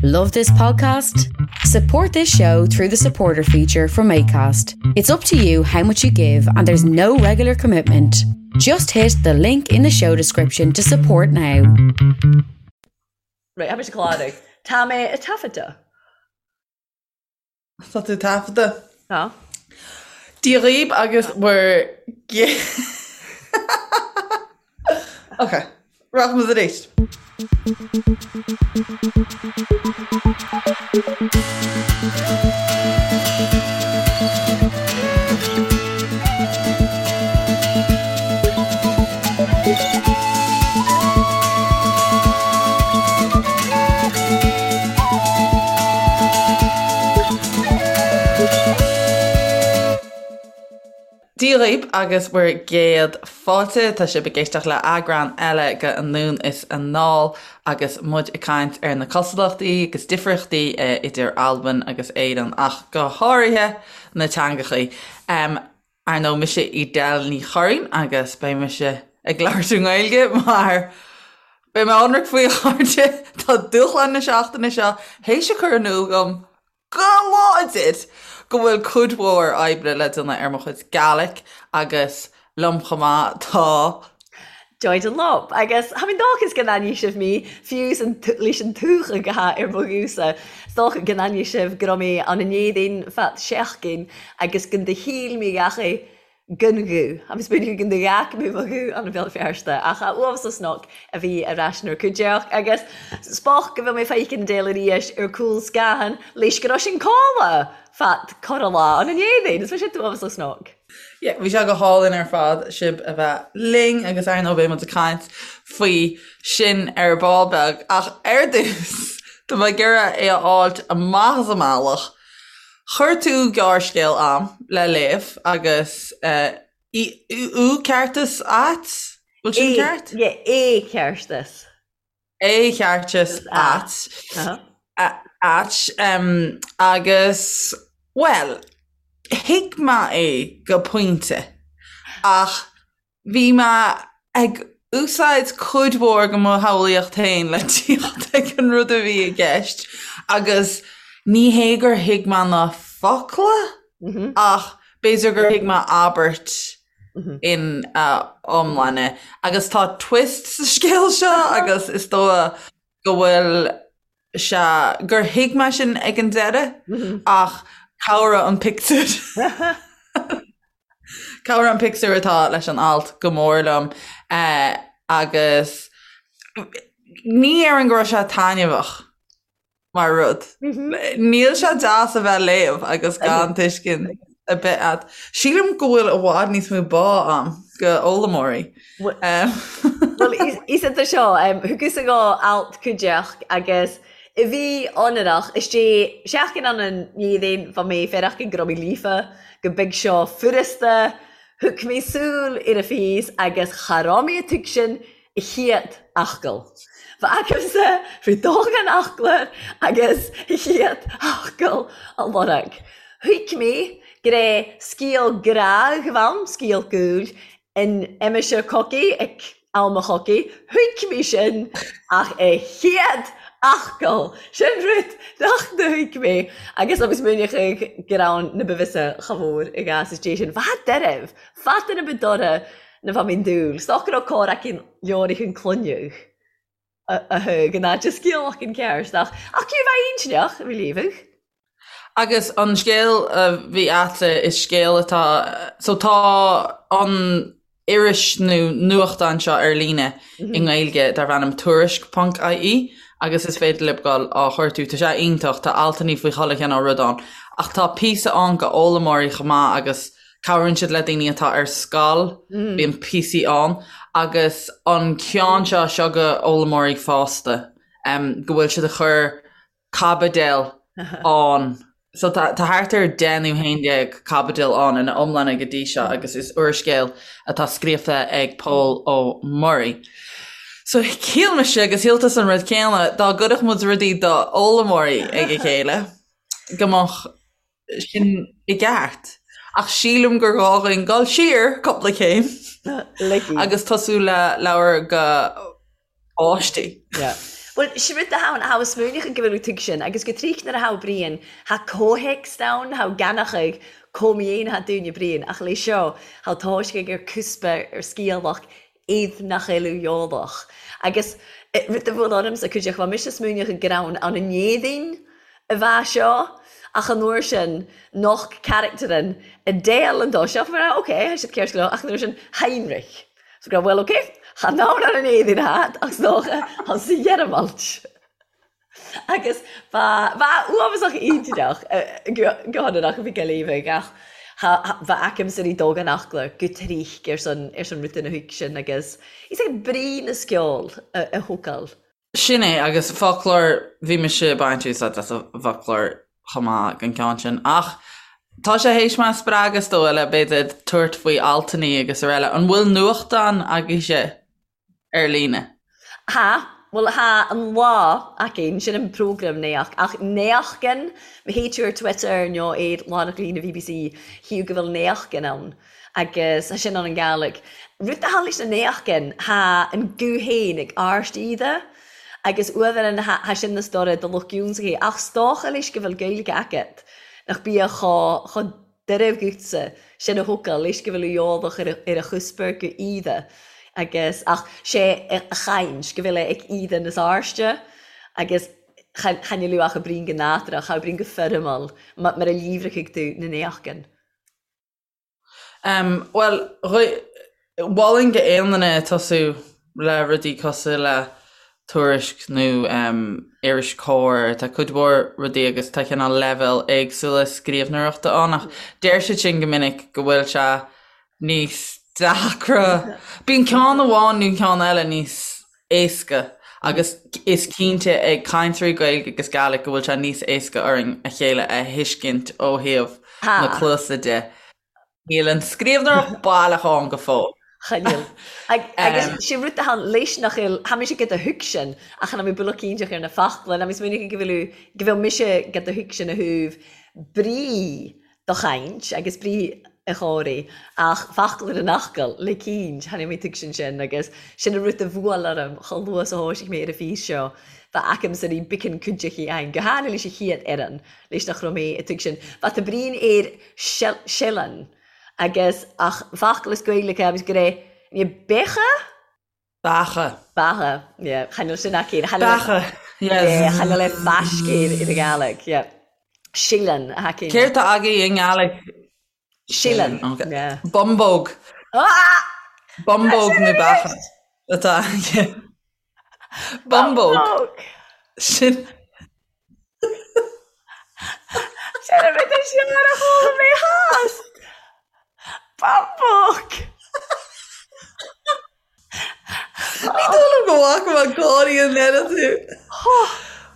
Love this podcast? Support this show through the supporter feature from ACAST. It's up to you how much you give, and there's no regular commitment. Just hit the link in the show description to support now. Right, tha mise clàraidh. Tá mé a' taifeadadh. Tá tú taifeadta. Tá. Dia dhaoib agus bhur Ok, rachaidh muid arís. Dia dhaoib agus bhur gcéad fáilte. Tá sibh ag éisteacht le eagrán eile de Anonn is Anall agus muid ag caint ar na cosúlachtaí agus difríochtaí idir Albain agus Éirinn ach go háirithe na teangachaí. Ar ndóigh, mise Edel Ní Churraoin agus beidh mise ag labhairt i nGaeilge mar beidh mé ionraic faoi a chairde, tá dúshlán na seachtaine seo théis a chur in iúl dom go láidir go bhfuil cuid mhór oibre le déanamh ar mo chuid Gaelic agus liom chomh maith tá. Joy Dunlop, Agus tha mi dòchas gun aithneidh sibh mi, fiù 's leis an tuathag a tha air mo ghuth-sa. 's dòcha gun aithneidh sibh gu robh mi ann an Èirinn fad seachdain agus gun do shíl mi dheachaidh gun ghuth. Tha mi smaoineachadh gun do ghearc mi mo ghuth ann a Bhéal Feirste, ach tha uabhasach 's a bhith air ais 'nar cuideachd agus 's bòth gu bheil mi feicean Edel a-rìis air cùl sgathan leis gu robh sinn codladh fad corra-la ann an Èirinn. Is bha sin uabhasach 's Yeah, bhí sé go hálainn ar fad sibh a bheith linn agus ar ndóigh beidh muid ag caint faoi sin ar ball beag ach ar dtús tá mé ag iarraidh é a fháilt amach as an mbealach. Chuir tú gearrscéal a'm le léamh agus eh, Ù Ceartas Ait? Bhfuil sin ceart? Yeah, é ceartas. É cheartas ait. Ait. Agus, bhuel, thuig mé é go pointe ach bhí mé ag úsáid cuid mhór de mo shamhlaíocht féin le tíocht ag an rud a bhí i gceist agus ní hé gur thuig mé na focla ach b'fhéidir gur thuig mé abairt in a iomláine. Agus tá twist sa scéal seo agus is dóigh go bhfuil sé, gur thuig mé sin ag an deireadh ach cabhraigh an pictiúr. Cabhraigh an pictiúr atá leis an alt go mór liom agus ní déarfainn go raibh sé taitneamhach. mar rud. Níl sé deas a bheith ag léamh agus gan tuiscint ar bith a't. Sílim go bhfuil i bhfad níos mó bá a'm go fhoghlaimeoirí. Bhuel, is iad seo, thugas-sa dho alt cuideachd agus a bhí ionrach, istigh seachdain ann an Èirinn bha mi faireachdain gu robh mi líofa, gu beag seo furasta, thug mi sùil air a phìos agus cha robh mi a' tuigsinn a chiad fhocal. Bha agamsa faoi dóchan fhoclóir agus a chiad fhocal a lorg. Thuig mi gur é sgeul gràdh a bh' ann, sgeul gùil, in aimsir cogaidh, ag am a chogaidh. Thuig mi sin ach a chiad fhocal, sin rud nach do thuig mi agus agus múineachadh gur ann na ba bhfios cha mhór i gcás is dé sin. Bha doirbh, fada na ba dorcha na bha mi'n dúil. 's dòcha gu robh còr eicint leòrachain cluineadh a thug in áit a sgeul ceart ach ach cé bheith intinneach a bhí líomhadh. Agus an scéal a bhí a'tsa is scéal atá so tá an iris nó nuachtán seo ar líne i nGaeilge darb ainm Tuairisc ponc ie agus is féidir libh dul á chuartú. Tá sé iontach, tá altannaí faoi chuile chineál rud ann ach tá píosa ann go fhoghlaimeoirí chomh maith agus Cabhraíonn siad le daoine atá ar scoil, bíonn píosaí ann, agus an ceann seo, seo go fhoghlaimeoirí fásta, go bhfuil siad ag cur caibidil ann. So tá thart ar 10 nó 11 caibidil ann ina iomláine go dtí seo agus is úrscéal atá scríofa ag Pól Ó Muirí. So shíl mise agus shíl tusa an rud céanna, dá gcuirfeadh muid rudaí do fhoghlaimeoirí ag a chéile, go mbeadh sin i gceart. Ach sílim gur ghá dhúinn dul siar cúpla céim agus tosú le leabhar go páistí. Yeah. Bhuel, sin rud atá ann, tha smaoineachadh go bhfuil tú sin, agus go tríoch nuair a tha Brian, tha comhthéacs ann, tha ganachadh comh-mhéin tha dúinne Brian, ach leis seo, tha toisc ag ar cuspa ar sciathlach iad nach eiliú eolach. Agus rud a bhuail ormsa cuideachta, bha mise smaoineachadh gur ann ann an Éadaoin a bha seo, ach an uair sin, noch carachtar Adele an dó seo, mar ok, tha siad ceart go leor, ach an uair sin, Heinrich. So go raibh, bhuel, ok, chan ann ar an Éadaoin agat, ach 's dócha, tha sa Ghearmailt. Agus ba, ba uafásach iontach go hionannach a bhí Gaillimhigh ach ba aicimse rí dóghan eachla go trích ar son, ar son rud ina thuig sin agus is ag brí na sceol a thógáil. Sin é, agus foclóir, bhí mise ag baint úsáid as an bhfoclóir chomh maith don ceann sin. Ach tá sé théis mé a spreagadh is dóigh le b'fhéidir tabhairt faoi altannaí agus araile. An bhfuil nuachtán agaibhse? ar líne. Tha, bhuel tha An Lá againn, sin an prógram naoch, ach naochgan, má théid tú ar Twitter nó ar lárnach líne bbc, chíodh go bhfuil naochgan ann agus tha sin ann an Gàidhlig. Rud a tha leis na naochgan, tha an guth féin ag àirst iad agus uaimheanna tha sin na stóra do lucht ionnsachaidh, ach 's dócha leis go bhfuil Gaeilge agat nach bíodh chomh Deireadh dhutsa, sin a thógáil leis go bhfuil eolach ar a chuspoir go íde agus ach sé a chaint go bhfuil é ag íde na sáirste agus chan fhuil ach a bríon go nádúrtha, cha bríon go foirmiúil mar a líomhrachaidh tú na néachgan. Bhuel, Mholfainn go aon duine tosú le rudaí cosúil le Tuairisc nó iris Comhar, tá cuid mhór rudaí agus tá cineál leibhéal éagsúla scríbhneoireachta ann ach deir siad sin go minic go bhfuil sé níos deacra. Bíonn ceann amháin nó ceann eile níos éasca agus is cinnte ag cainteoirí Gaeilge agus Gàidhlig go bhfuil sé níos éasca orainn a chéile a thuiscint ó thaobh na cluasa de. Níl an scríbhneoireacht baileach ann go fóill. Chan eil. Agus sé rud atá ann leis nach eil, tha mise ag do thuigsin ach chan eil mi beulach cinnteach ar na fachla, ná mi smaoineachadh go bhfuil, go bhfuil mise ag do thuigsin a thaobh brí do chaint agus brí a chomhraidh ach fachla na n-fhachal le cinnt, chan eil mi tuigsin sin agus sin an rud a bhuail orm chomh luath 's a thoisigh mé ar an phíos seo, bha agamsa rí biceann cuideachtaí ann, go háirithe leis an chéad fhoireann, leis nach raibh mé ag tuigsin. Bha ta Brian ar sileann agus ach focal is Gaeilge agus go raibh ní beacha? Beacha. Beacha, yeah. Chan eil sin aici. Beacha, yes. Chan eil é faiscéir i Gàidhlig, yeah. Sileann a aici. Céard tá agaibh i nGàidhlig? Sileann, yeah. Bumbóg. Ah! Bumbóg nó beacha atá aici. Bumbóg. Sin. Sin an rud is fearr a chuala mé theas. Bumbóg. Ní dóigh liom go bhfaca mé gáirí an oiread tú.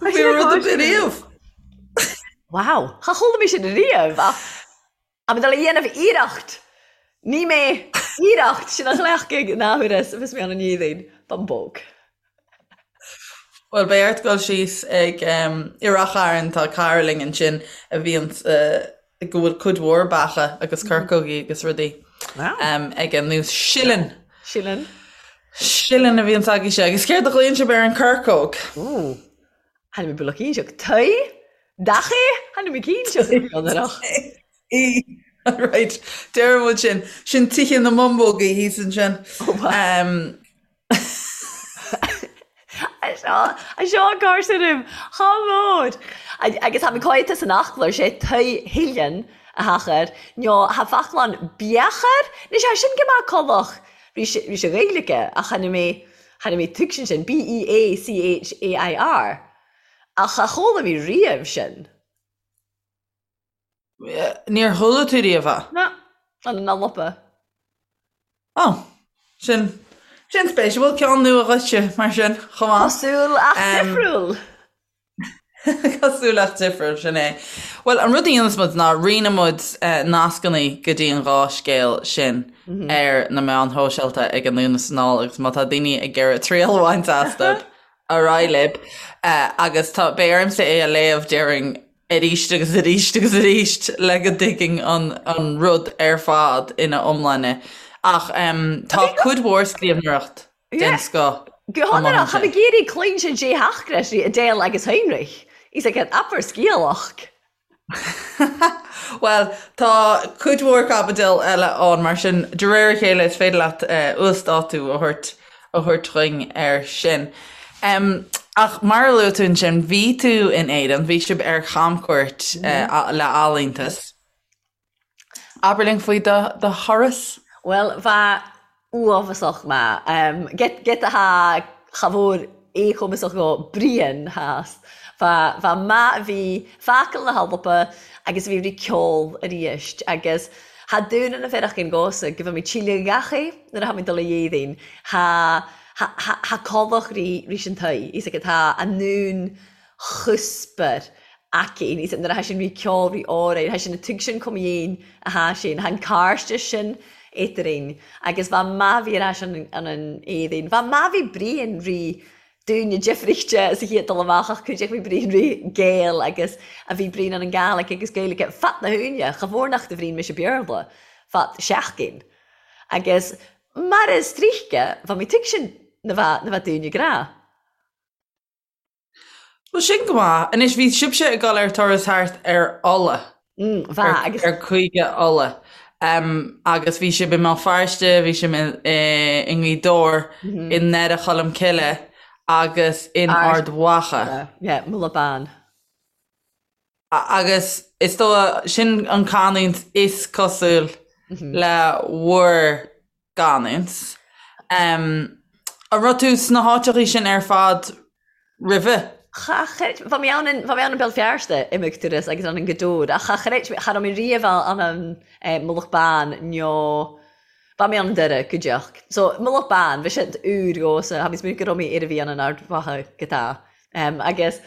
Bhí rud ar bith riamh. Wow, cha chuala mé sin riamh ach Tá mé dul a dhéanamh iarracht! Ní mé iarracht sin a chleachtadh in athuair is a bheas mé ann an Éadaoin. Bumbóg. Bhuel, beidh ort dul síos ag i Rath Chairn, tá cara linn ansin a bhíonn go bhfuil cuid mhór beacha agus corcógaí agus rudaí aige nó sileann. Sileann. Sileann a bhíonns agaibhse. Agus céard a ghlaonn sibh ar an corcóg? Ooh. Tha mi beulach cinnteach. Tae? Dach é? Tha mi cinnteach. Í. Right. Deireann muid sin. Sin tithe na mbumbógaí thíos ansin. Oh, Seo an cár sin Chá mór! Agus tha mi còidte san fhaclair, sé tae shileann a thachair, nó tha faclan beachair, nis tha sin go maith colach ris a Ghaeilge ach tha mi tha mi tuigsin sin, B-E-A-C-H-A-I-R, ach cha chuala mi riamh sin. Níor chuala tú riamh é? Na, an an lopa. Ó, sin, sin spéisiúil, ceann nua dhuitse mar sin, chomh maith. Cosúil ach difriúil. Cosúil ach difriúil, sin é. Bhuel, an rud a dhéanfas muid ná roinnfidh muid nascanna go dtí an dhá scéal sin ar na meáin shóisialta ag Anonn is Anall agus má tá daoine ag iarraidh triail a bhaint astu, ar aghaidh libh. Agus tá, beidh ormsa é a léamh, déarfainn, arís agus arís agus arís le go dtuigfinn an rud ar fad ina iomláine. Ach tá cuid mhór scríbhneoireacht den scoth. Go hionrach, tha mi ag iarraidh cluinstin dè th'achrais ri Adele agus Heinrich. He's like an abair sgialach. Bhuel, tá cuid mhór caibidil eile ann, mar sin de réir a chéile is féidir leat uasdátú a thabhairt a thabhairt dhuinn air sin. Ach mar a luaigh tú ansin, bhí tú in Éirinn, bhí sibh ar chamchuairt le Ealaíontas. Abair linn faoi do thuras. Bhuel, bha uabhasach math. Giota tha cha mhór éachumasach dho Brian theas. Bha bha math a bhí facal na hAlba agus a bhí ri ceol aríst agus tha dún na bhfearach gos-sa go bhfuil mé tsíle gach é nuair a tha mé dul a dhéadaoin. Tha tha tha tha codlach ri rís an toigh. Is aige tá a ndún chuspair aici. Níos nuair a tha sin ri ceol ri òraidh, tha sin a tug sin cum dhéin a tha sin, tha an càirdeas sin eadrainn agus bha math bhí ar ais an an Éadaoin. Bha math bhí Brian ri dúinne difríchte sa chéad dul amach ach cuideachd bhí Brian ri Gael agus a bhí Brian an an Gàidhlig agus Gaeilge fad na húine, cha mhór nach do Bhrian mise Béarla fad seachtain. Agus mar is tríche, bha mi tug sin na bha na bha dúinne grá. Bhuel, sin go maith. Anois, bhí sibhse ag dul ar turas thart ar Uladh. Bha, agus. Ar Chúige Uladh. Agus bhí sibh i mBéal Feirste, bhí sibh i nGaoth Dobhair, i nDoire Cholm Cille agus in Ard Mhacha. Yeah, Mullach Bán. Agus is dóigh, sin an canúint is cosúil le bhur gcanúint. An raibh tú sna háiteachaí sin ar fad roimhe? Cha chreid, bha mi ann in, bha mi ann an Béal Feirste imeag turas agus ann an Gaoth Dobhair ach cha chreid mi, cha raibh mi riamh ann an Mullach Bán nó bha mi ann an Doire go deoch. So Mullach Bán, bha sin úr dhomhsa, tha mi smaoineamh go raibh mi ar a bhí ann an Ard Mhacha go tá. Agus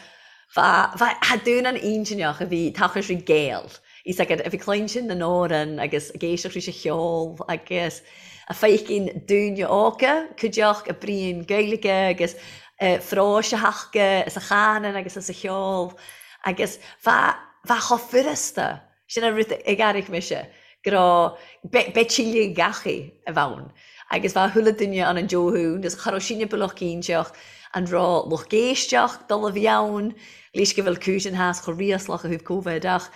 bha, bha, tha dún an intinneach a bhí tachais ri Gael. Is agad a bhí cluinstin na n-òran agus ag éisteacht ris a cheol agus a feicinn dúine óga, cuideachd a bruíon Gaeilge agus phróis a thaca is a chanann agus is a cheol agus bha, bha chomh furasta Sin an rud ag airigh mise, go raibh, beidh tuilleadh gach-aoi a bheith ann. Agus bheadh chuile duine ann an deo-thún, agus cha raibh sinne bealach cinnteach an raibh lucht éisteacht dul a bhí ann, leis go bhfuil cúis an theas chomh riaslach ó thaobh Covid, ach,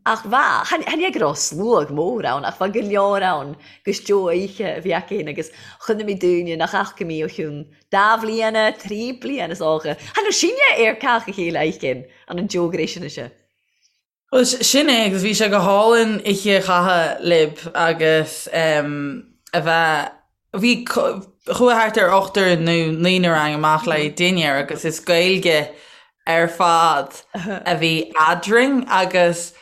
ach bheadh, chan, chan é go raibh sluagh mór ann, ach bheadh go leor ann gus deo-oíche a bhí acu féin agus chonaic mé daoine nach fhaca mé ó chionn dá bhliana, trí bliana is dócha. Chan raibh sinne ar cách a chéile oíche ann an deo-ghréis sin. Bhuel, sin é agus bhí sé go hálainn oíche a chaitheamh libh agus a bheith, bhí, chuaigh thart ar ochtar nó naonúr againn amach le dinnéar agus is Gaeilge ar fad a bhí eadrainn agus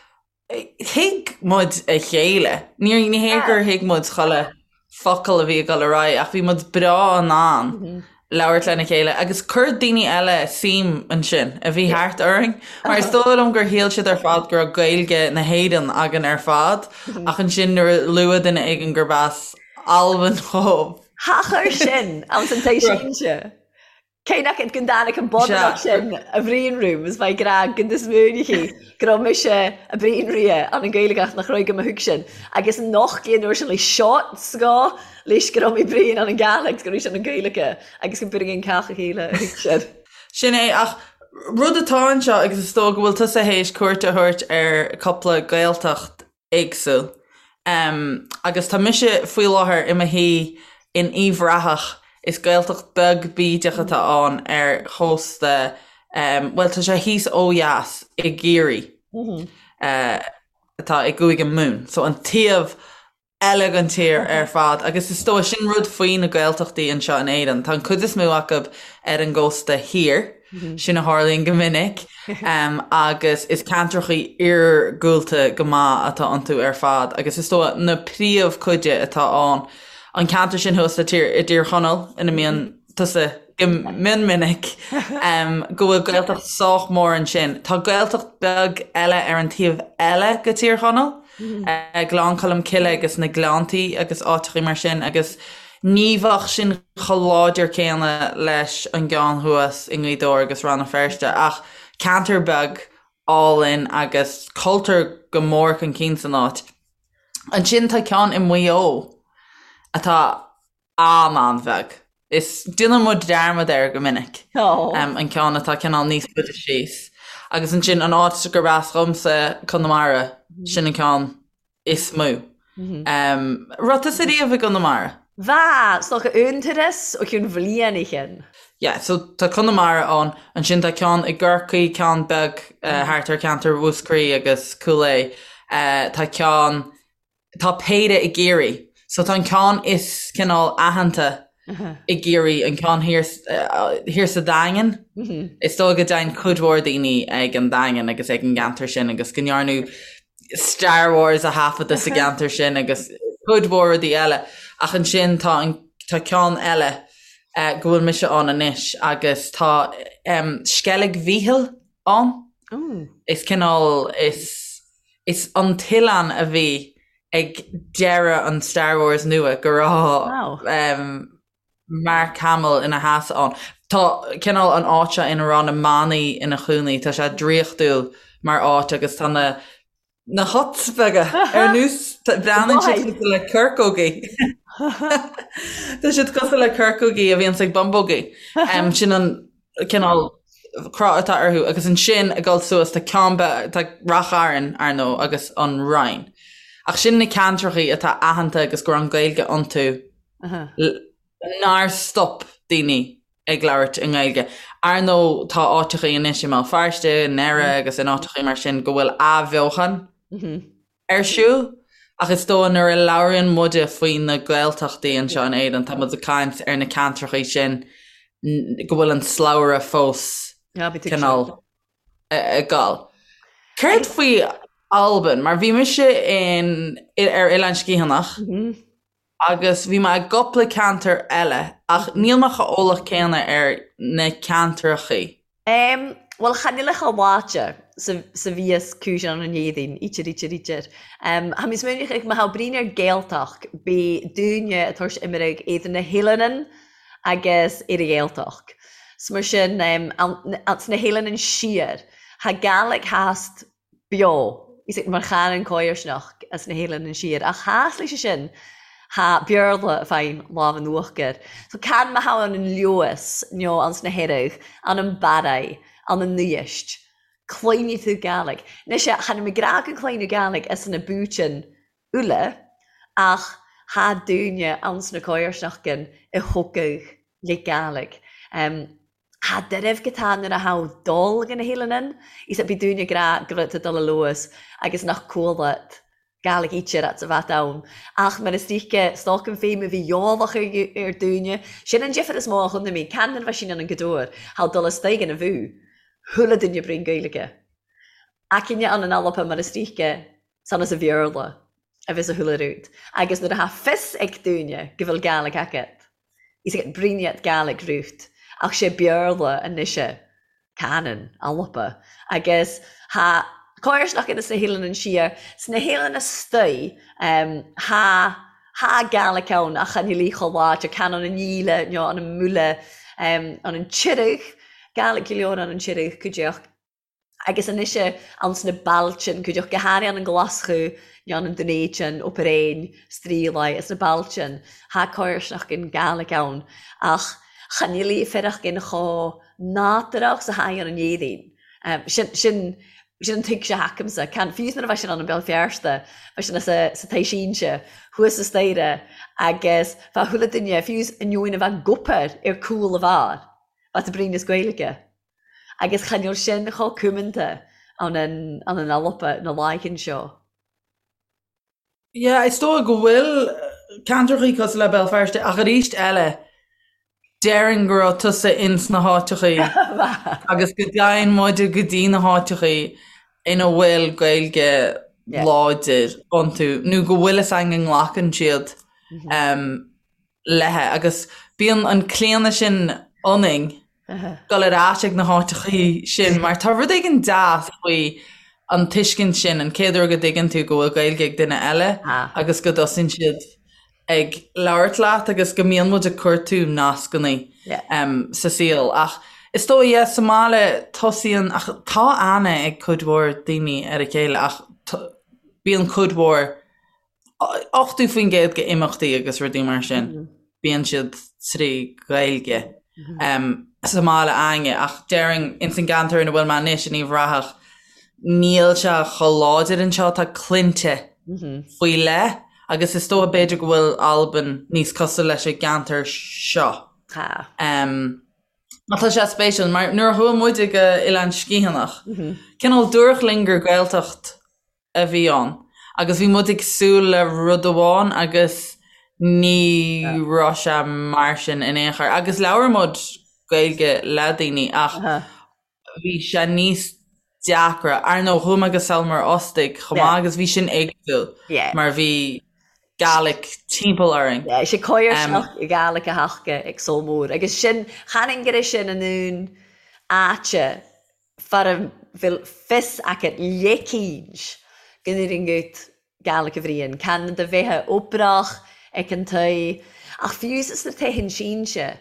thuig muid a chéile. Ní ní hé gur thuig muid chuile focal a bhí ag dul ar aghaidh ach bhí muid breá in ann labhairt lena chéile agus chuir daoine eile suim ansin a bhí thart orainn mar is dóigh liom gur shíl siad ar fad go raibh Gaeilge na hÉireann againn ar fad ach ansin nuair a luaigh duine éigin gurb as Albain dhóibh. Tha chur sin anns an t-sínte. Cé nach go dtáinig an bodach sin a bhriain room is bheidh grá go is múineachí go raibh mise a bhriain ria an an Gaeilge ach nach raibh go mo thug sin agus noch gé nuair sin le shots go leis go raibh mé bhriain an an Gàidhlig go raibh sin an Gaeilge agus go b'fhéidir an cách a chéile a thug sin. Sin é ach rud atá anseo agus is dóigh go bhfuil tusa théis cuairt a thabhairt ar cúpla Gaeltacht éagsúil. Agus tá mise faoi láthair i mo shuí in Uíbh Ráthach, is Gaeltacht beag bídeach atá ann ar chósta, bhuel tá sé thíos ó dheas i gCiarraí, atá i gCúige Mumhan, so an taobh eile den tír ar fad. Agus is dóigh, sin rud faoi na Gaeltachtaí anseo in Éirinn, tá an cuid is mó acu ar an gcósta thiar, Sin a tharlaíonn go minic agus is ceantrachaí iargúlta go maith atá iontu ar fad agus is dóigh na príomhchuide atá ann, an ceantar sin thuas le tír, i dTír Chonaill ina mbíonn tusa go mion minic, go bhfuil Gaeltacht sách mór ansin. Tá Gaeltacht beag eile ar an taobh eile go Tír Chonaill, Gleann Cholm Cille agus na Gleanntaí agus áiteachaí mar sin agus Ní bheadh sin chomh láidir céanna leis an gceann thuas i nGaoth Dobhair agus Rann na Feirste ach ceantar beag álainn agus cultúr go mór chun cinn san áit. Ansin tá ceann i Maigh Eo atá an-an-bheag. Is déanann muid dearmad air go minic. An ceann atá cineál níos faide síos. Agus ansin an áit gurb as dhomsa, Conamara, sin an ceann is mó. Raibh tusa riamh i gConamara? Bha, 's dòcha aon turas o chionn bhliain a chinn. Yeah, so tá Conamara ann, ansin tá ceann i gCorcaigh, ceann beag thart ar cheantar Mhúscraí agus Cúil Aodha. Tá ceann Tá péire i gCiarraí. So tá an ceann is cineál aitheanta i gCiarraí, an ceann thiar, thiar sa Daingean. Is dóigh go dtéann cuid mhór daoine ag an Daingean agus ag an gceantar sin agus go ndearnadh Star Wars a thaifeadadh sa gceantar sin agus cuid mhór rudaí eile. Ach ansin tá an, tá ceann eile go bhfuil mise ann anois agus tá Sceilg Mhichíl ann. Is cineál, is. Is an t-oileán a bhí ag deireadh an Star Wars nua go raibh Mark Hamill ina sheasamh ann. Tá cineál an áit seo ina raibh na manaigh ina chónaí, tá sé draíochtúil mar áit agus tá na na huts beaga ar nós breathnaíonn siad cosúil le corcógaí. Tá siad cosúil le corcógaí a bhíonns ag bumbógaí. Sin an cineál cruth atá orthu agus ansin ag dul suas tá ceann beag, tá Ráth Chairn, ar ndóigh, agus an Rinn. Ach sin na ceantrachaí atá aitheanta agus go raibh an Ghaeilge iontu nár stop daoine ag labhairt i nGaeilge. Ar ndóigh tá áiteachaí anois i mBéal Feirste, i nDoire agus in áiteachaí mar sin go bhfuil athbheochan ar siúl, ach is dóigh nuair a labhraíonn muide faoi na Gaeltachtaí anseo in Éirinn, tá muid ag caint ar na ceantrachaí sin go bhfuil an slabhra fós cineál ag gabháil. Céard faoi Albain? Mar bhí mise in ar Oileán Sgitheanach agus bhí mé i gcúpla ceantar eile ach níl mé chomh eolach céanna ar na ceantrachaí. Em, bhuel, chan eil a chomh láidir 's a bhíos cùis ann an Éadaoin, ítear, ítear, ítear. Em, tha mi smaoineachadh ma tha bruidhinn air Gàidhealtachd, bidh daoine a' tabhairt imirg idir na h-eileanan agus ar a' Ghàidhealtachd. 'S mar sin, em, ann, anns na h-eileanan siar, tha Gàidhlig thast beo, is mar chanann comharsanacht as na h-eileanan siar, ach thas leis sin, tha Beurla fàin làmh an uachdair. So can ma tha ann an Leòdhas no anns na h-Earraig, ann an Barraigh, ann an Uibhist, cluinidh thu Gàidhlig. Anois chan eil mi ag ràdh gun cluineadh Gàidhlig as na booitean uile, ach tha daoine anns na comharsnachdan a thógadh le Gàidhlig. Tha dairbh go tá nuair a tha dol go na h-eileanan, is bidh daoine ag ràdh gu bheil tu dol a Leòdhas agus nach cualadh Gàidhlig ítear at a bhat ann. Ach mar is ríce, 's dòcha an feidhm a bhí eòlach ar daoine, sin an difear is mó a chonaic mé, can nuair a bha sinn ann an Gaoth Dobhair, tha dul astoigh ina bhú, chuala duine bruidhinn Gaeilge. Aicine ann an Alba mar is ríce, san as a Bhéarla a bheas a chuala rud. Agus nuair a tha fios ag daoine go bhfuil Gàidhlig agat, Is ag bruidhinn Gàidhlig rút, ach sé Béarla anois canann Alba. Agus tha comharsanacht ins na h-eileanan siar, sna h-eileanan astoigh, tha tha Gàidhlig ann ach chan eil í chomh láidir, can ann an Ìle nó ann an Mùile, ann an Tirg, Gàidhlig go leor ann an Tirg cuideachd. Agus anois anns na bailtean, cuideachd go hàraidh ann an Glaschu nó ann an Dùn Èideann, Obar Èin, Strealaigh, is na bailtean, tha comharsnachdan Gàidhlig ann, ach chan eil í fearachdan chomh nádúrach 's a tha í ann an Éadaoin. Sin, sin, sin an tuigse atha agamsa. Can, fiú nuair a bha sinn ann an Béal Feirste, bha sinn sa, sa Tigh Sínse, thuas sa staighre, agus bha chuile duine, fiú ainneoin a bheith ag obair ar cúl a bheár, bha tú bruidhinn as Gaeilge. Agus chan eil sin chomh cumanta ann an an Alba na laighean seo. Yeah, is dóigh go bhfuil ceantrachaí cosúil le Béal Feirste ach arís eile déarfainn go raibh tusa ins na háiteachaí agus go dtéann muide go dtí na háiteachaí ina bhfuil Gaeilge láidir iontu nó go bhfuil fhios againn go nglacann siad léithe agus bíonn an claonadh sin ionainn dul ar ais ag na háiteachaí sin mar tá rud éigin deas faoi an tuiscint sin, an chéad uair go dtuigeann tú go bhfuil Gaeilge ag duine eile agus go dtosaíonn siad ag labhairt leat agus go mbíonn muid ag cuartú nascannaí sa saol. Ach is dóigh, yeah, sa mbaile tosaíonn, ach tá aithne ag cuid mhór daoine ar a chéile ach bíonn cuid mhór, 80% de imeachtaí agus rudaí mar sin, bíonn siad. trí Ghaeilge sa mbaile a'ainne ach déarfainn ins an gceantar ina bhfuil mé anois in Uíbh Ráthach níl sé chomh láidir anseo, tá cluinte faoi leith agus is dócha b'fhéidir go bhfuil Albain níos cosúil leis an gceantar seo. Tá. Ach tá sé spéisiúil mar nuair a chuaigh muide go Oileán Sgitheanach, cineál dúradh linn gur Gaeltacht a bhí ann agus bhí muid ag súil le rud amháin agus ní raibh sé mar sin in aon chor. Agus labhair muid Gaeilge le daoine ach bhí sé níos deacra. Ar ndóigh, chuaigh mé go Sabhal Mòr Ostaig chomh maith agus bhí sin éagsúil mar bhí Gaelic timpeall orainn. Yeah, sé coirsneach Gaelic a thaca ag Sabhal Mòr agus sin, chan fhinn go raibh sin in aon áite fara bhfuil fios agat leicínt go n-éiríonn gut Gaelic a bhriain, can do bheithe oipreach ag an toigh, ach fiú sna tithe sínse,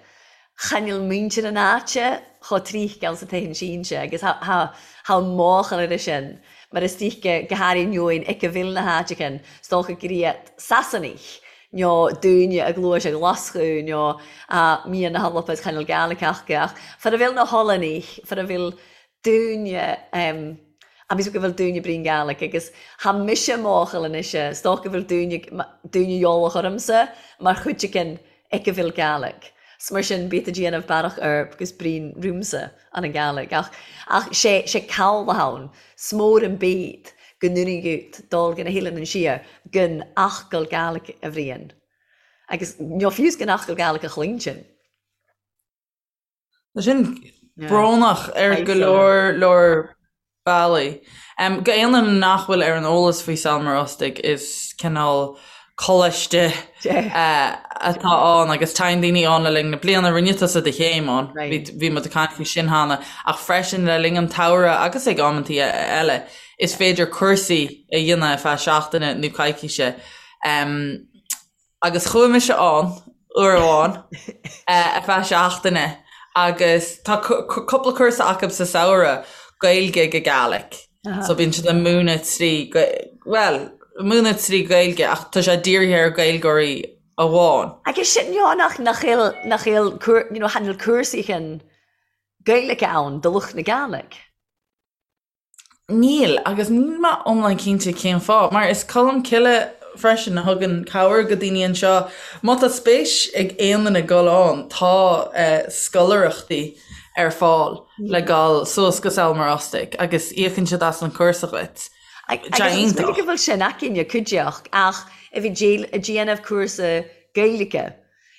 chan fhuil muintir an áite chomh tríthceal sa tithe sínse agus tha máchail air sin, mar is dóiche go háirithe neoin ic a bhfuil na háiteachain, 's dócha gur iad Sasanaich nó daoine a ghluais a Ghlaschú nó a mbíonn na hAlba is chan fhuil Gaelic acu, ach fara bhfuil na hOllannaich, fara bhfuil daoine, agus go bhfuil daoine brín Gaelic agus tha mise máchail anois, 's dócha go bhfuil daoine, daoine eolach ormsa mar chuid again ic a bhfuil Gaelic. 's mar sin bíod a déanamh bearach ar agus brín rúmsa an an Gaelic ach, ach sé, sé cabhlach ann, 's mór an bíd go ndúnaidh dul go na hOileáin an siar gan fhocal Gaelic a bhriain. Agus nó fiú's gan fhocal Gaelic a chluinstin. Tá sin brónach ar go leor leor bealaí. Go aon duine nach bhfuil ar an eolas faoi Sabhal Mòr Ostaig, is cineál coláiste atá ann agus téann daoine ann le linn na bliana. Rinne tusa do chéim ann, bhí muid ag caint faoi sin cheana, ach freisin le linn an tsamhraidh agus ag amantaí eile, is féidir cúrsaí a dhéanamh ar feadh seachtaine nó coicíse. Agus chuaigh mise ann uair amháin ar feadh seachtaine agus tá cúpla cúrsa acu sa samhradh, Gaeilge go Gaelic. So bíonn siad ag múineadh trí, bhuel, múineadh trí Ghaeilge ach tá sé dírithe ar Ghaeilgeoirí amháin. Agus sin you nach nach bhfuil nach bhfuil you know chan fhuil cúrsaí chun Gaeilge ann do lucht na Gaelic. Níl, agus níl mé iomlán cinnte cén fáth, mar is Colmcille freisin a thugann cabhair go daoine anseo. Má tá spéis ag aon duine dul ann, tá scoláireachtaí ar fáil le dul suas go Sabhal Mòr Ostaig agus íocann siad as an chúrsa dhuit. Agus is minic go bhfuil sin againne, cuideachta, ach a bhí ag déanamh cúrsa Gaeilge.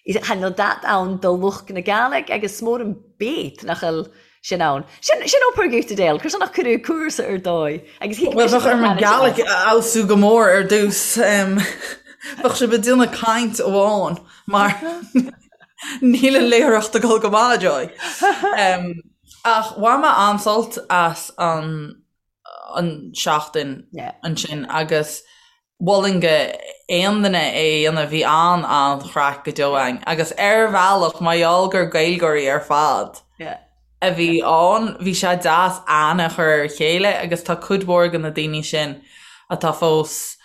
Chan fhuil dat ann do lucht na Gàidhlig agus 's mór an bét nach fhuil sin ann. Sin sin obair dhuit, Adele, cur nach cuireadh cúrsa ar dóigh agus thuig Bhuel, bheadh orm an Gàidhlig a fheabhsú go mór ar dtús. Bheadh sibh ag déanamh caint amháin mar níl an léitheoireacht ag dul go maith, Joy. Ach bhain mé an-sult as an an seachtain ansin agus mholfainn go aon duine é a dhéanamh, bhí an-an-chraic go deo againn agus ar bhealach mar gheall gur Gaeilgeoirí ar fad a bhí ann, bhí sé deas aithne a chur ar a chéile agus tá cuid mhór de na daoine sin atá fós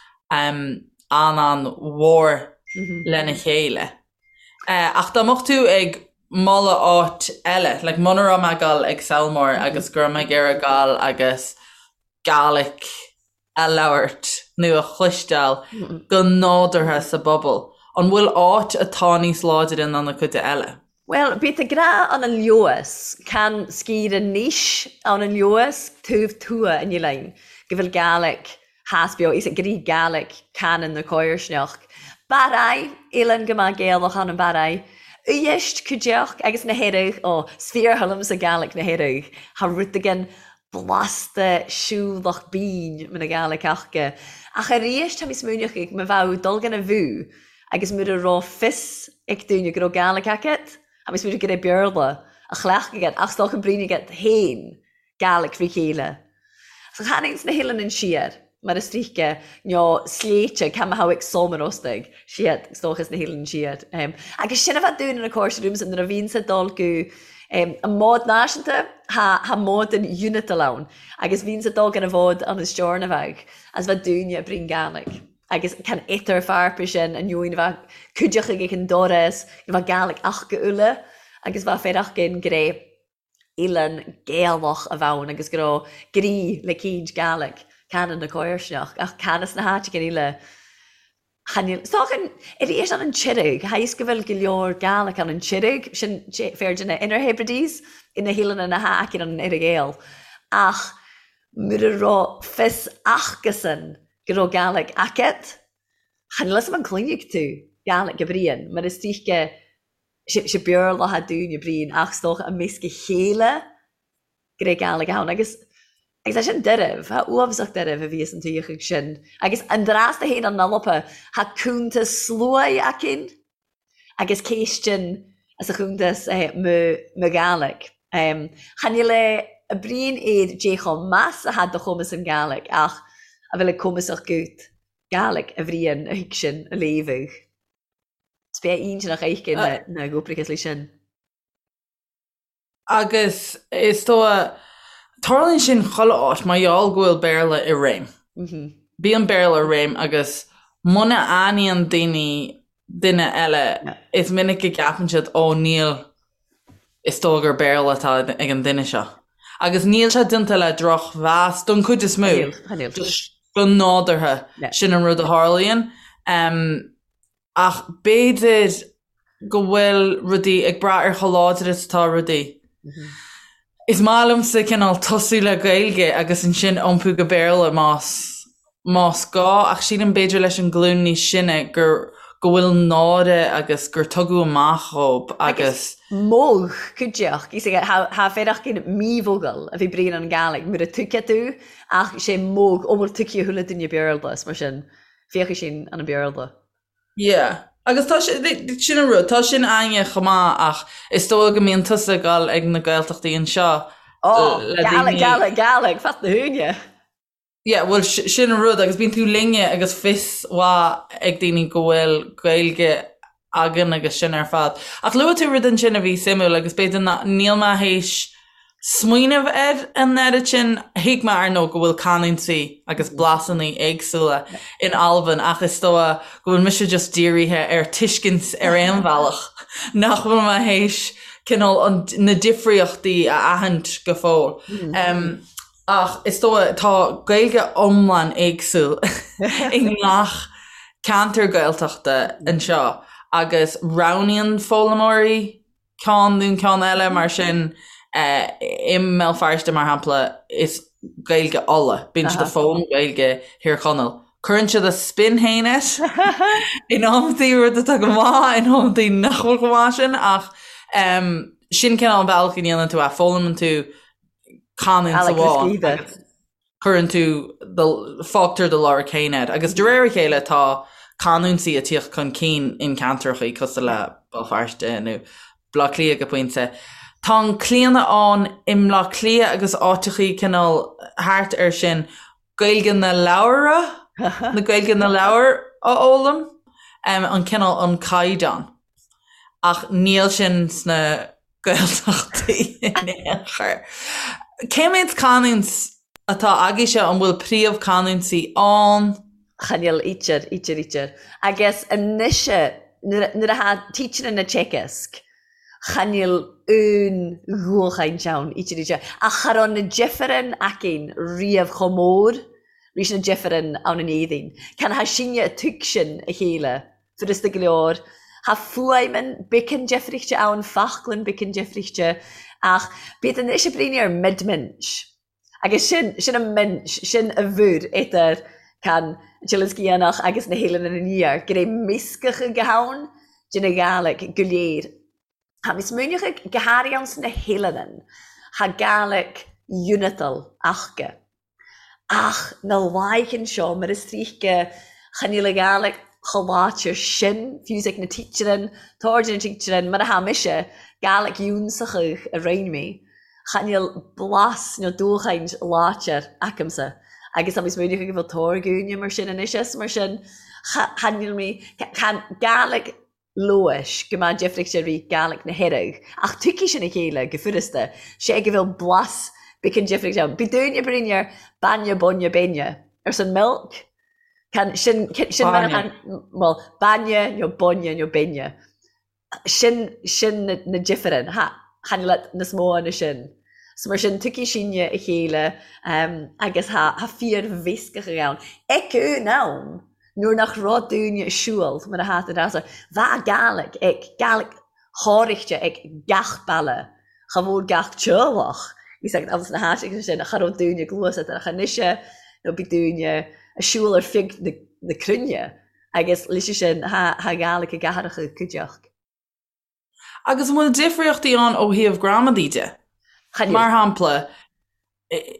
an-an-mhór lena chéile. Ach dá mbeadh tú ag moladh áit eile, like muna raibh mé ag dul ag Sabhal Mòr agus go raibh mé ag iarraidh dul agus Gaelic a labhairt nó a chloisteáil go nádúrtha sa bpobal, an bhfuil áit atá níos láidre ná na cuide eile? Bhuel, bíod a grá ann an Leodhas, can sciorr anois ann an Leodhas, taobh tuath an oileáin, go bhfuil Gaelic theas beo, is ag rí Gaelic canann na coirsneach. Barraigh, oileán go maith Gaelach ann an Barraigh. Uibhist, cuideachd, agus na hEireadh, ó, 's fíor-thoil liomsa Gaelic na hEireadh, tha rud again blasta siúlach bínn mar na Gaelic aca. Ach arís tá mé smaoineach ag mo bheadh dul gan a bhú agus mura raibh fios ag daoine go raibh Gaelic agat, tá mé smaoineach go raibh Béarla a chleachtadh agat ach 's dócha brín agat féin Gaelic frí chéile. So chan ins na hOileáin siar, mar is tríce, nó sléibhte, cá mbeadh ag Sabhal Mòr Ostaig, siad, is dócha, sna hOileáin siar. Agus sin a bheadh dúinn ina cóir rúmsa nuair a bhíonns ag dul go an mbád náisiúnta, tha mbád an Unitil ann, agus bhíonns ag dul gan an bhád an is deorna bheadh, as bheadh dúinne ag brín Gaelic. Agus can idir fearpa sin an neoin bheadh cuideachta ag an doras, bheadh Gàidhlig aca uile agus bheadh féarach-gin go raibh oileán Gaelach a bheadh ann agus go raibh grí le caoint Gàidhlig can na comharsanacht ach can sna háiteacha eile chan fhuil. Is dócha arís an an Tiraig, tha fhios go bhfuil go leor Gàidhlig ann an Tiraig, sin fear de na Inner Hebrides, na hoileáin na h-aice an Earra-Ghael ach mura raibh fios acusan go raibh Gàidhlig agat, chan fhuil fhios a'm an cluinfidh tú Gàidhlig a Brian, mar is dóiche sé Béarla atá dúinn a Brian ach is dócha i measc a chéile go raibh Gàidhlig ann agus agus é sin deirbh, tá uafásach deirbh a bhíos an tuigheadh sin agus an dreas a théann an Alba, tá cuntas sluaighe againn. agus céistean as a chuntas mo mo Ghàidhlig. Chan fhuil a Brian air dé chomh meas a tha do chumas an Ghàidhlig ach a bhfuil ag cumasach gut Gàidhlig a Bhriain a thuig sin a léamhadh. Is bea ínteanach aici na na gcúprachas leis sin. Agus is dóigh, tarlaíonn sin chuile áit mar gheall go bhfuil Béarla i réim. Bíonn Béarla i réim agus muna aithníonn daoine duine eile, is minic go gceapann siad, ó níl, is dóigh gur Béarla atá ag an duine seo. Agus níl sé déanta le drochmheas don chuid is mó. Just go nádúrtha, sin an rud a tharlaíonn. Ach b'fhéidir go bhfuil rudaí ag brath ar chomh láidir is atá rudaí. Is maith liomsa cineál tosú le Gaeilge agus ansin iompú go Béarla más más gá ach sílim b'fhéidir leis an ghlúin níos sine gur go bhfuil náire agus gur tugadh amach dhób agus. Modh cuideachd, tha féireachdain mí-mhogall a bhith Brian an Ghàidhlig mura tuigfeadh tú ach sé modh ó bhfuil tuigthe chuile duine Beurla is mar sin féachfaidh sin an an Béarla. Yeah. Agus tá sé, sin an rud, tá sin againne chomh maith ach is dóigh go mbíonn tusa ag dul ag na Gaeltachtaí anseo Oh, le Gaelic, daoine. Gaelic, Gaelic, fat na húine. Yeah, bhuel sin an rud agus bíonn tú linne agus fios mhaith ag daoine go bhfuil Gaeilge againn agus sin ar fad. Ach luaigh tú rud ansin a bhí suimiúil agus b'fhéidir ná, níl mé théis smaoineamh air an oiread sin. Thuig mé, ar ndóigh, go bhfuil canúintí agus blasanna éagsúla in Albain ach is dóigh go bhfuil mise just dírithe ar tuiscint ar aon bhealach, nach bhfuil mé théis cineál an, na difríochtaí a aithint go fóill. Ach is dóigh, tá Gaeilge iomlán éagsúil i ngach ceantar Gaeltachta anseo agus roghnaíonn foghlaimeoirí ceann nó ceann eile, mar sin i mBéal Feirste, mar shampla, is Gaeilge Uladh, bíonn siad ag foghlaim Gaeilge Thír Chonaill. Cuireann siad a spin féin air in amantaí, rud atá go maith, in amantaí nach bhfuil chomh maith sin, ach sin cineál an bealach go ndéanann tú é, foghlaimeann tú canúint amháin agus cuireann tú, fágtar do lorg féin air. Agus de réir a chéile tá canúintí ag tíocht chun cinn in ceantrachaí cosúil le Béal Feirste nó Baile Átha Cliath go pointe. Tá an claonadh ann i mBleá Cliath agus áiteachaí cineál thart air sin Gaeilge na leabhar, na Gaeilge na leabhar a fhoghlaim, an cineál an caighdeán. Ach níl sin sna Gaeltachtaí in aon chor. Cé mhéad canúint atá agaibhse? An bhfuil príomhchanúintí ann? Chan eil idir, idir, idir. Agus a-nis, nuair a tha teachrann na teagasg, chan eil aon dhualchaint ann, idir, idir. Ach cha robh na difreann againn riamh chomh mór ris na difreann ann in Éirinn. Can tha sinne a' tuigsinn a chéile Furasta go leor. Tha fuaimean beagan difrichte ann, faclainn beagan difrichte, ach bíod anois ag bruidhinn air mid-minch. Agus sin, sin an minch, sin a bhur idir can Teileann Sgitheanach agus na h-Eileanan an Iar, gur é meascadh go hann de na Gàidhlig go léir. Tha mi smaoineachadh go hairithe ann sna h-Eileanan, tha Gàidhlig unitail aca. Ach na laighean seo, mar is tríthce, chan eil a Ghàidhlig chomh láidir sin, fiú 's ag na teachrann, tord na teachrann, mar a tha mise, Gàidhlig ionsachadh a roinn mé, chan eil blas nó dúchaint láidir acamsa. Agus tá mé smaoineachadh go bhfuil tórgúine mar sin anois is mar sin, chan eil mé, chan Gàidhlig Leodhais, go mbeadh difríocht ar rith Gàidhlig na hEireadh, ach tuigfidh sin a chéile go furasta, sé go bhfuil blas beagan difríocht ann. Bidh daoine ag bruidhinn air bainne, bainne, beine, arsan milk. Can sin sin mar well bainne nó bainne nó binne. Sin sin na difearann chan eil nas mó na sin. So mar sin tiocfaidh sinne a chéile agus tha fíor-mheascadh ann. Ag an am nuair nach raibh daoine ag siúl mar a tha tú ag rá bha Gàidhlig ag Gàidhlig thòraichte ag gach baile cha mhór gach teaghlach is ag agus na háiteacha sin cha raibh daoine ag gluaiseacht ach anois nó bhí daoine ag siúl ar feadh na cruinne agus leis sin tha Gàidhlig i gcathracha cuideachta. Agus an bhfuil difríochtaí ann ó thaobh gramadaí de? Chan Mar shampla,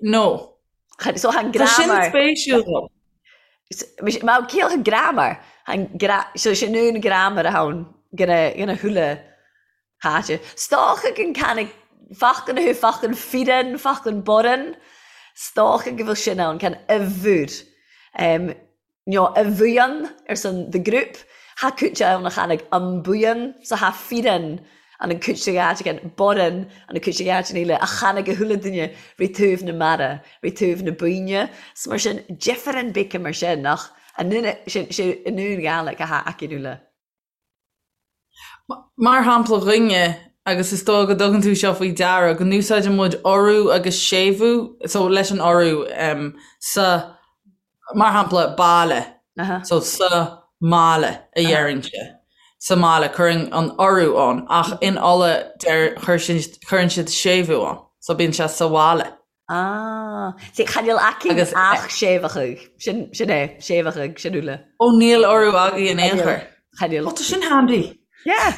nó. So tha an Tá sin grammar. spéisiúil dom. Má cíoch an grammar, so sin an grammar a ann gona thuile háite. 'S dócha gun can fachcan thu fachcan fireann, fachcan borann, 's dócha go bhfuil sin ann, can uimhir. Nó a bhuíon arsan the group, tha cúite ann a chanaig an buíon, so tha fireann an an cúite gheáiteagan, borann an an cúite gheáitean eile, a chanaig a chuile duine ri taobh na mara, ri taobh na buíne. 'S mar sin, difearann bíce mar sin, ach an nún, sin, sé an nún Gàidhlig a tha aicinn uile. Mar shampla dhuine, agus is dóigh go dtugann tú seo faoi deara, go n-úsáideann muid urú agus séimhiú, so leis an urú sa, mar shampla, baile, so sa mbaile a deirimse, sa mbaile, cuireann an urú ann, ach in Uladh deir, cuireann siad séimhiú ann, so bíonn sé sa bhaile. Ah, see, chan eil aicinn Agus ach séimheachadh. Sin, sin é, séimheachadh, sin uile. Ó níl urú agaibh in aon chor. Chan eil. Ó tá sin handy. Yeah.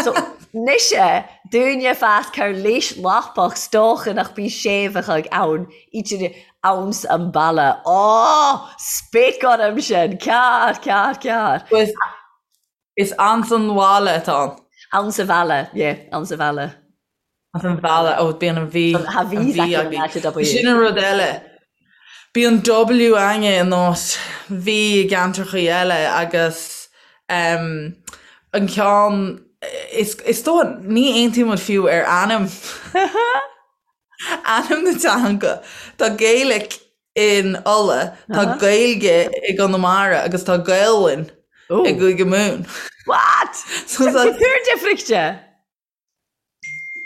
So, mise, dúinne fas car léis lapach 's dócha nach bí séimheachadh ann, idir anns an baile. Ó, spéic orm sin, cearr, cearr, cearr. Is, is anns an bhaile atá ann. Anns a bhaile, yeah, anns a bhaile. An bhaile, ó bíonn an V, Tha an V V againn againn. in áit W. Sin an rud eile. Bíonn W againne in áit V i gceantrachaí eile agus um, an ceann is, is dóigh ní aontaíonn muid fiú ar ainm ainm na teanga. Tá Gaelic in Uladh, tá Gaeilge i gConamara agus tá Gaelainn i gCúige Mumhan. What? So Tá túr difrichte.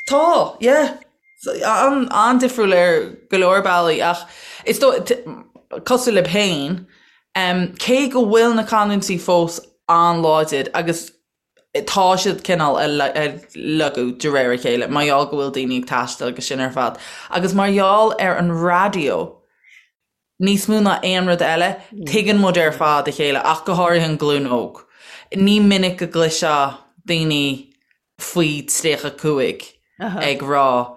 Tá, yeah. An-difriúil ar go leor bealaí ach is dóigh, cosúil libh féin, cé go bhfuil na canúintí fós an-láidir agus tá siad cineál ag lagú de réir a chéile mar gheall go bhfuil daoine ag taisteal agus sin ar fad agus mar gheall ar an raidió, Níos mó ná aon rud eile, tuigeann muid ar fad a chéile, ach go háirithe an ghlúin óg. Ní minic go gcloisfeá daoine faoi 35 ag rá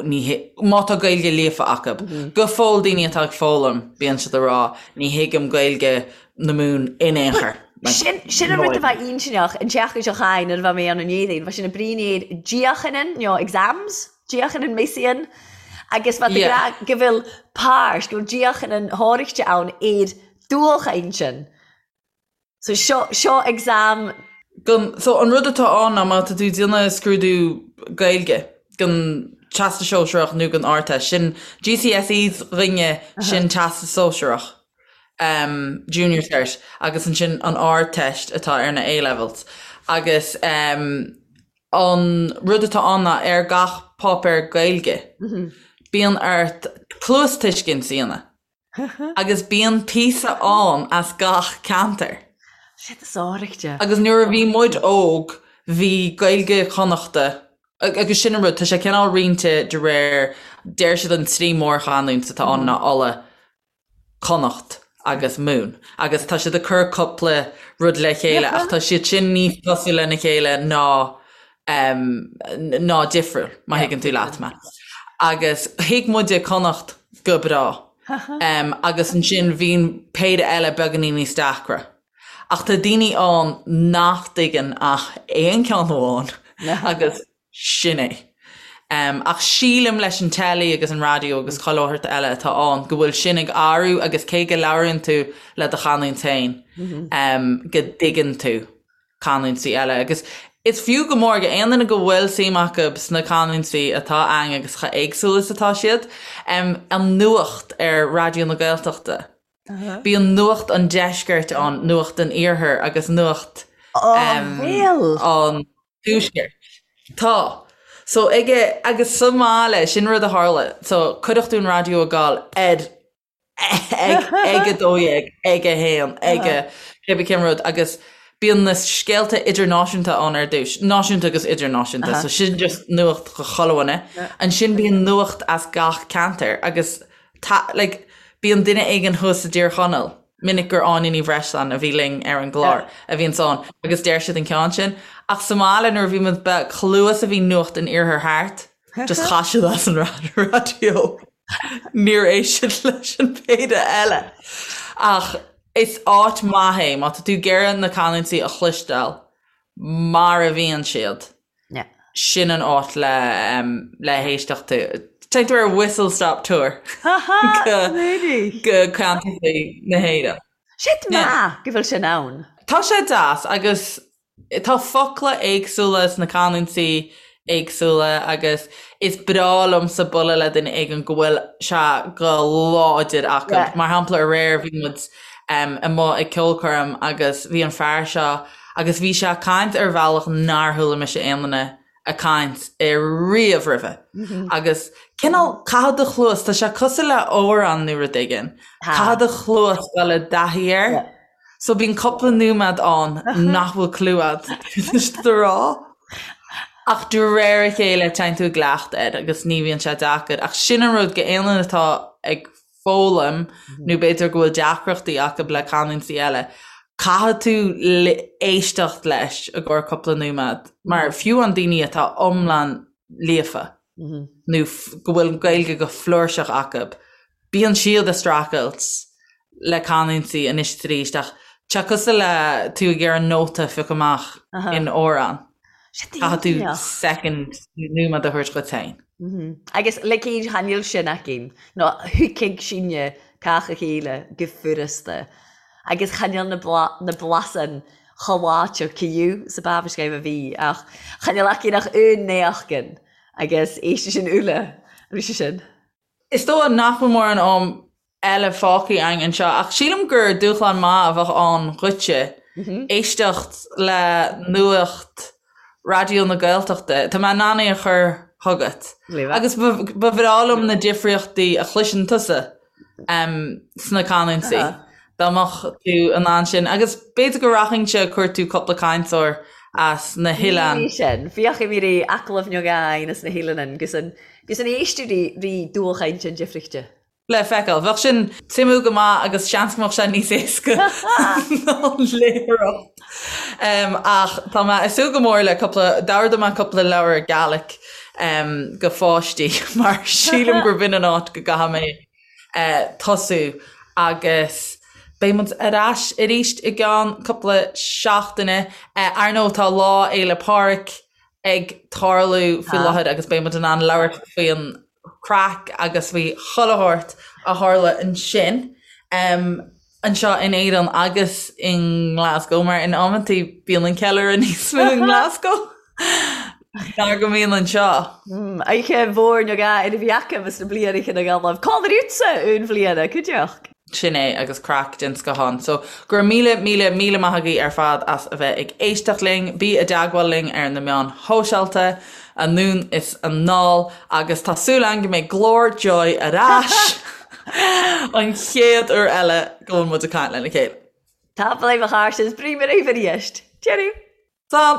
ní má tá Gaeilge líofa acu. Go fóill daoine atá ag foghlaim, bíonn siad ag rá ní thuigim Gaeilge na Mumhan in aon chor. Sin sin an rud a bha inntinneach an tseachtain seo chaith nuair a bha mé ann an Éadaoin, bha sinn a' bruidhinn air diachainean, nó exams. Diachan an Messian agus bha tú ag ràdh go bhfuil pàirt, go bhfuil diachan an thòraichte ann air dualchainntean. So seo, seo exam. Gon, so an rud atá ann ná má tá tú ag déanamh scrúdú Gaeilge don Teastas Sóisearach nó don Ardteist, sin GCSEs dhúinne, sin Teastas Sóisearach, um, Junior Cert, agus ansin an Ardteist atá ar na A-levels. Agus um, An rud atá ann ná ar gach páipéar Gaeilge, bíonn ort cluastuiscint a dhéanamh agus bíonn píosa ann as gach ceantar. Shit is áirithe. Agus nuair a bhí muid óg, bhí Gaeilge Chonnachta, agus sin an rud, tá sé cineál roinnte de réir, deir siad an trí mhórchanúint atá ann ná Uladh, Connacht agus Mumhan agus tá siad ag cur cúpla rud le chéile ach tá siad sin níos cosúil lena chéile ná ná difriúil, má thuigeann tú leat mé. Agus thuig muide Connacht go breá agus ansin bhí péire eile beagáinín níos deacra. Ach tá daoine ann nach dtuigeann ach aon ceann amháin agus Sin é. Ach sílim leis an teilí agus an raidió agus chuile shórt eile atá ann go bhfuil sin ag athrú agus cé go labhraíonn tú le do chanúint féin go dtuigeann tú canúintí eile. Agus is fiú go mór go aon duine go bhfuil suim acu sna canúintí atá ann agus chomh éagsúil is atá siad, an nuacht ar Raidió na Gaeltachta. Bíonn nuacht an deiscirt ann, nuacht an iarthair agus nuacht an tuaiscirt. Tá. So aige, agus sa mbaile, sin rud a tharla, so cuireadh tú an raidió ag gabháil ar ag ag 12, ag 1, ag a cébí cén rud agus bíonn na scéalta idirnáisiúnta ann ar dtús, náisiúnta agus idirnáisiúnta, so sin just nuacht do chuile dhuine. Ansin bíonn nuacht as gach ceantar agus tá, like, bíonn duine éigin thuas i dTír Chonaill, minic gur Áine Ní Bhreisleáin a bhí linn ar an gclár a bhíonns ann agus deir siad an ceann sin. Ach sa mbaile nuair a bhí muid beag, chomh luath is a bhí nuacht an iarthair thart, just chaith siad as an raidió. Níor éist siad leis an péire eile. Ach is áit maith é má tá tú ag iarraidh na canúintí a chloisteáil mar a bhíonn siad. Sin an áit le le héisteacht. Téann tú ar whistle stop tour go go ceantracha na hÉireann. Sin maith go bhfuil sin ann. Tá sé deas agus Tá focla éagsúla sna canúintí éagsúla agus is breá liomsa bualadh le duine éigin go bhfuil sé go láidir acu. Mar shampla aréir bhí muid amuigh ag ceolchoirm agus bhí an fear seo agus bhí sé ag caint ar bhealach nár chuala mise aon duine ag caint riamh roimhe. Agus cineál caithfidh do chluas, tá sé cosúil le amhrán nó rud éigin, caithfidh do chluas dul i dtaithí air. So bíonn cúpla nóiméad ann nach bhfuil clue agat cad tá siad a rá. Ach de réir a chéile téann tú i gcleachtadh air agus ní bhíonn sé deacair. Ach sin an rud go aon duine atá ag foghlaim nó b'fhéidir go bhfuil deacrachtaí acu le canúintí eile, caithfidh tú éisteacht leis i gcomhair cúpla nóiméad. Mar fiú an daoine atá iomlán líofa nó go bhfuil an Ghaeilge go flúirseach acu, bíonn siad ag streachailt le canúintí anois is arís ach tá sé cosúil le tú ag iarraidh nóta a phiocadh amach in amhrán. Caithfidh tú second nóiméad a thabhairt dhuit féin. Agus le cén chan eil sin againn, nó thuigfeadh sinne cách a chéile go furasta. Agus chan eil na blasann chomh láidir ciú sa bábhscéim a bhí, ach chan eil againn ach aon néachgan agus éistfidh sin uile, bhí sé sin. Is dóigh nach bhfuil mórán am eile fágtha againn anseo, ach sílim gur dúshlán maith a bheadh ann dhuitse éisteacht le nuacht Raidió na Gaeltachta. Tá mé in ann é a chur chugat. Agus ba bhreá liom na difríochtaí a chloiseann tusa sna canúintí, dá mbeadh tú in ann sin. Agus b'fhéidir go rachainnse ag cuartú cúpla cainteoir as na hoileáin. Sin. Bhíodh mé ri agallamh beag againn as na hoileáin gus an Gus an éisteadh ri ri dúchaint an difrichte. Le feiceáil. Bheadh sin suimiúil go maith agus seans go mbeadh sé níos éasca ná an léitheoireacht. Ach tá mé ag súil go mór le cúpla, d'ordaigh mé cúpla leabhar Gaelic go pháistí mar sílim gur b'in an áit go gcaithfidh mé tosú agus beidh muid ar ais arís i gceann cúpla seachtaine. Ar ndóigh tá Lá Fhéile Pádraig ag tarlú faoi láthair agus beidh muid in ann labhairt faoin chraic agus faoi chuile shórt a tharla ansin anseo in Éirinn agus i nGlasgow mar in amantaí bíonn an ceiliúradh níos mó i nGlasgow ná go mbíonn anseo. Oíche mhór na gá ina bhí acu is na bliana na Gaillimh. Cá bhfuil un bhliana, cuideachta? Sin é, agus craic den scoth ann. So, go raibh míle, míle, míle maith agaibh ar fad as a bheith ag éisteacht linn. Bí i dteagmháil linn ar na meáin shóisialta, anonn is anall, agus tá súil againn go mbeidh glór Joy ar ais an chéad uair eile go bhfuil muid ag caint lena chéile. Tapadh leibh a chairde is brí mé raibh arís. Deireadh! Slán!